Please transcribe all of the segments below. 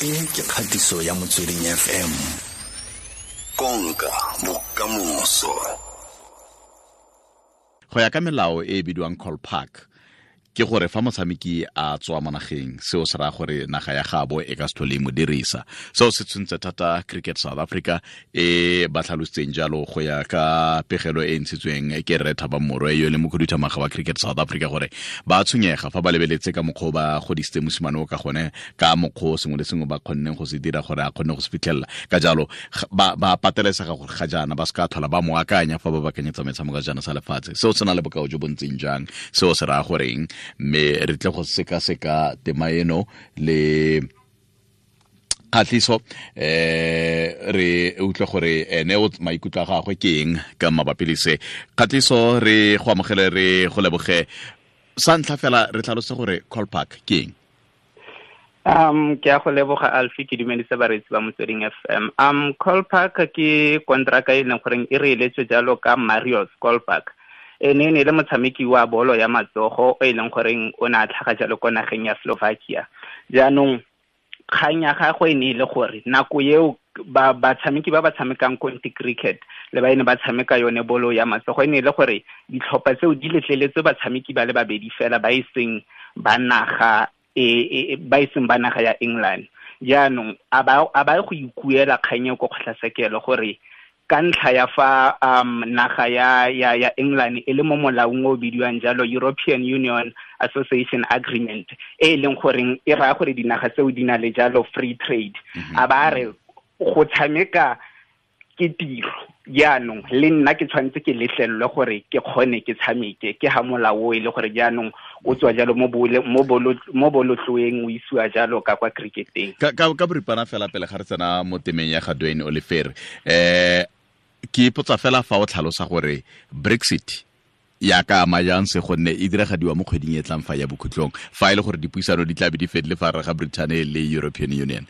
E ke kgatiso ya Motsweding FM. Konka bokamoso. Go ya ka melao e e bidiwang Kolpak, ke gore fa motshameki a tswa mo nageng, seo se raya gore naga ya gabo e ka se tlhole e mo dirisa. Seo se tshwentse thata Cricket South Africa e ba tlhalositseng jalo go ya ka pegelo e ntshitsweng ke Rre Thabang Morwe, yo e leng mokhuduthamaga wa Cricket South Africa, gore ba tshwenyega fa ba lebeletse ka mokgwa o ba godisitse mosimane o ka gone, ka mokgwa o sengwe le sengwe ba kgonneng go se dira gore a kgone go se fitlhelela. Ka jalo ba patelesega gore ga jaana ba se ka tlhola ba mo akanya fa ba bakanyetsa metshameko ya sejana sa lefatshe. Seo se na le bokao jo bo ntseng jang? Seo se raya goreng? Mme re tle go sekaseka tema eno le Kgatlhiso, re utlwe gore ene o maikutlo a gagwe ke eng ka mabapi le se. Kgatlhiso, re go amogele, re go leboge. Sa ntlha fela, re tlhalose gore Kolpak ke eng. Ke a go leboga, Alfie. Ke dumedise bareetsi ba Motsweding FM. Kolpak ke kontraka e leng goreng e re eletswe jalo ka Marius Kolpak. Ene e ne e le motshameki wa bolo ya matsogo o e leng goreng o ne a tlhaga jalo ko nageng ya Slovakia. Jaanong kgang ya gagwe e ne e le gore nako eo batshameki ba ba tshamekang conti cricket le ba ene ba tshameka yone bolo ya matsogo, e ne e le gore ditlhopha tseo di letleletse batshameki ba le babedi fela ba e seng ba naga e, ba e seng ba naga ya England. Jaanong a ba go ikuela kgang eo ko kgotlatshekelo gore ka ntlha ya fa naga ya England e le mo molaong o bidiwang jalo European Union Association Agreement, e leng goreng e raya gore dinaga tseo di na le jalo free trade. A ba re go tshameka ke tiro, jaanong le nna ke tshwanetse ke letlelelwe gore ke kgone ke tshameke. Ke ha molao o e le gore jaanong o tswa jalo mo bolotloeng, o isiwa jalo ka kwa cricketeng. Ka boripana fela, pele ga re tsena mo temeng ya ga Duane Olivier, ke ipotsa fela fa o tlhalosa gore Brexit ya ka ama jang se, gonne e diragadiwa mo kgweding e tlang fa ya bokhutlong, fa e le gore dipuisano di tla be di fedile fa gare ga Britain le European Union.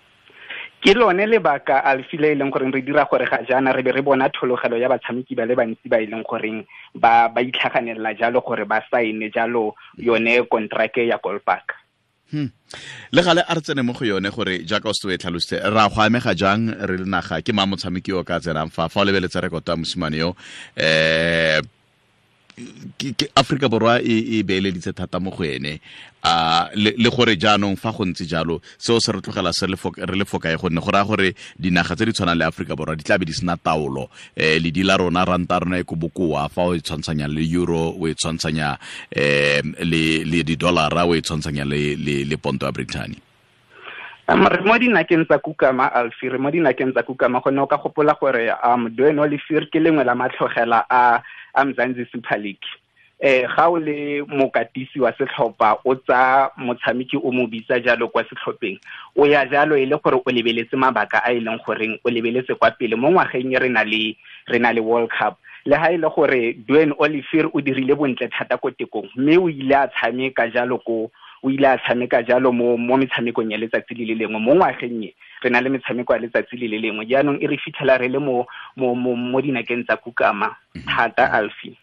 Ke lone lebaka, Alfie, le e leng goreng re dira gore ga jaana re be re bona thologelo ya batshameki ba le bantsi ba e leng goreng ba itlhaganelela jalo gore ba saene jalo yone kontrake ya Kolpak. Le gale a re tsene mo go yone gore jaaka o se o e tlhalositse, ra go amega jang re le naga? Ke mang motshameki yo o ka tsenang fa o lebeletse rekoto ya mosimane yo? Ke Afrika Borwa e beeleditse thata mo go ene, a le gore jaanong fa go ntse jalo, seo se re tlogela se re le fokae, gonne go raya gore dinaga tse di tshwanang le Afrika Borwa di tla be di sena taolo. Ledi la rona, ranta rona e ko bokoa fa o e tshwantshanya le euro, o e tshwantshanya le di-dollara, o e tshwantshanya le ponto ya Britain. Re mo dinakeng tsa kukama, Alfie, re mo dinakeng tsa kukama, gonne o ka gopola gore Duane Olivier ke lengwe la matlhogela a Mzansi Super League. Ga o le mokatisi wa setlhopha, o tsa motshameki o mo bitsa jalo kwa setlhopheng, o ya jalo e le gore o lebeletse mabaka a e leng goreng o lebeletse kwa pele mo ngwageng e re na le World Cup. Le ha e le gore Duane Olivier o dirile bontle thata ko tekong, mme o ile a tshameka jalo ko o ile a tshameka jalo mo metshamekong ya letsatsi le le lengwe. Mo ngwageng e re na le metshameko ya letsatsi le le lengwe, jaanong e re fitlhela re le mo dinakeng tsa kukama thata, Alfie.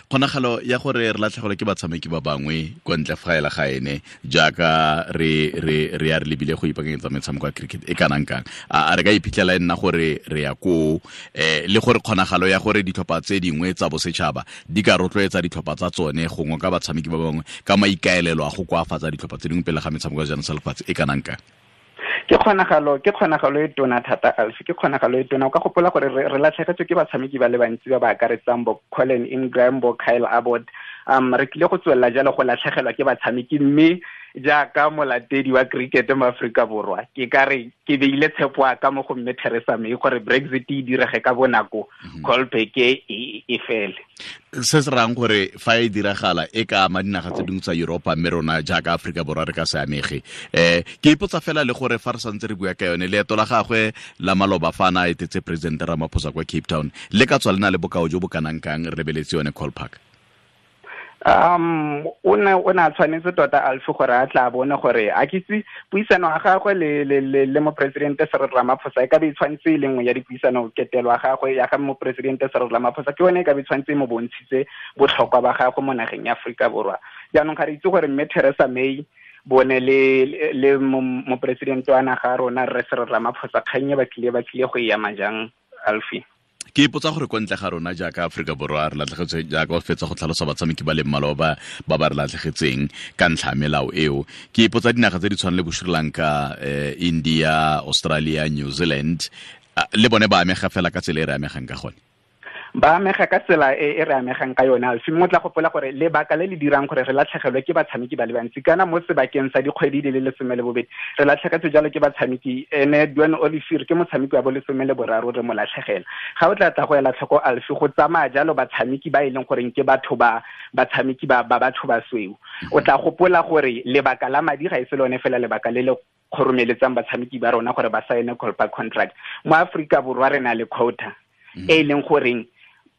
Kgonagalo ya gore re latlhegelwe ke batshameki ba bangwe kwa ntle fa ela ga ene, jaaka re ya re lebile go ipaakanyetsa metshameko ya cricket, e kanang kang? A re ka iphitlhela e nna gore re ya koo, le gore kgonagalo ya gore ditlhopha tse dingwe tsa bosetšhaba di ka rotloetsa ditlhopha tsa tsone gongwe ka batshameki ba bangwe ka maikaelelo a go koafatsa ditlhopha tse dingwe pele ga metshameko ya sejana sa lefatshe e kanang kang? Ke kgonagalo e tona thata, Alfie, ke kgonagalo e tona. O ka gopola gore re latlhegetswe ke batshameki ba le bantsi ba ba akaretsang bo Colin Ingram, bo Kyle Abbott. Re tlile go tswelela jalo go latlhegelwa ke batshameki, mme jaaka molatedi wa cricket mo Aforika Borwa, ke ka re ke beile tshepo a ka mo go mme Theresa May gore Brexit e direge ka bonako, Kolpak e fele. Se se rayang gore fa e diragala e ka ama dinaga tse dingwe tsa Europa, mme rona jaaka Aforika Borwa re ka se amege. Ke ipotsa fela le gore fa re santse re bua ka yone, leeto la gagwe la maloba fa na etetse President Ramaphosa kwa Cape Town le ka tswa le na le bokao jo bo kanang kang, re lebeletse yone Kolpak? O ne a tshwanetse tota, Alfie, gore a tla bone gore a kitse puisano ya gagwe le mopresidente Cyril Ramaphosa e ka be e tshwanetse e le nngwe ya dipuisano. Ketelo ya gagwe ya ga mopresidente Cyril Ramaphosa ke yone e ka be e tshwanetse e mo bontshitse botlhokwa ba gagwe mo nageng ya Aforika Borwa. Jaanong ga re itse gore mme Theresa May Bone le mopresidente wa naga rona Rre Cyril Ramaphosa, kgang e ba tlile go e ama jang, Alfie? Ke ipotsa gore ko ntle ga rona jaaka Aforika Borwa re latlhegetswe, jaaka o fetsa go tlhalosa batshameki ba le mmalwa ba re latlhegetseng ka ntlha ya melao eo. Ke ipotsa dinaga tse di tshwanang le bo Sri Lanka, India, Australia, New Zealand, le bone ba amega fela ka tsela e re amegang ka gone. Ba amega ka tsela e re amegang ka yone, Alfie. Mme o tla gopola gore lebaka le le dirang gore re latlhegelwe ke batshameki ba le bantsi, kana mo sebakeng sa dikgwedi di le 12 re latlhegetswe jalo ke batshameki. Ene Duane Olivier ke motshameki wa bo 13, re mo latlhegela. Ga o tla tla go ela tlhoko, Alfie, go tsamaya jalo batshameki ba e leng goreng ke batho ba batshameki ba batho ba sweu. O tla gopola gore lebaka la madi ga e se lone fela lebaka le le kgoromeletsang batshameki ba rona gore ba saene Kolpak contract. Mo Aforika Borwa re na le quota e leng goreng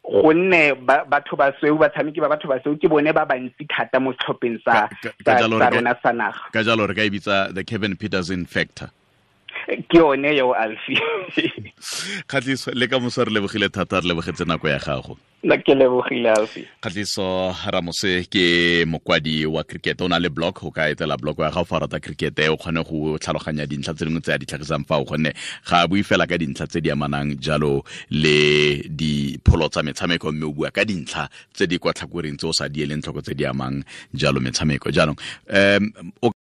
gonne batho ba sweu, batshameki ba batho ba sweu ke bone ba bantsi thata mo setlhopheng sa rona sa naga. Ka jalo re ka e bitsa the Kevin Peterson factor. Ke yone eo, Alfie. Kgatliso, le ka moso re lebogile thata, re lebogetse nako ya gago. Nna ke lebogile, Alfie. Kgatliso Ramose ke mokwadi wa cricket, o na le blog, o ka etela blog ya gago fa o rata cricket, o kgone go tlhaloganya dintlha tse dingwe tse a di tlhagisang fa o, gonne ga a bue fela ka dintlha tse di amanang jalo le dipholo tsa metshameko, mme o bua ka dintlha tse di kwa tlhakoreng tse o sa di eleng tlhoko tse di amang jalo metshameko. Jaanong o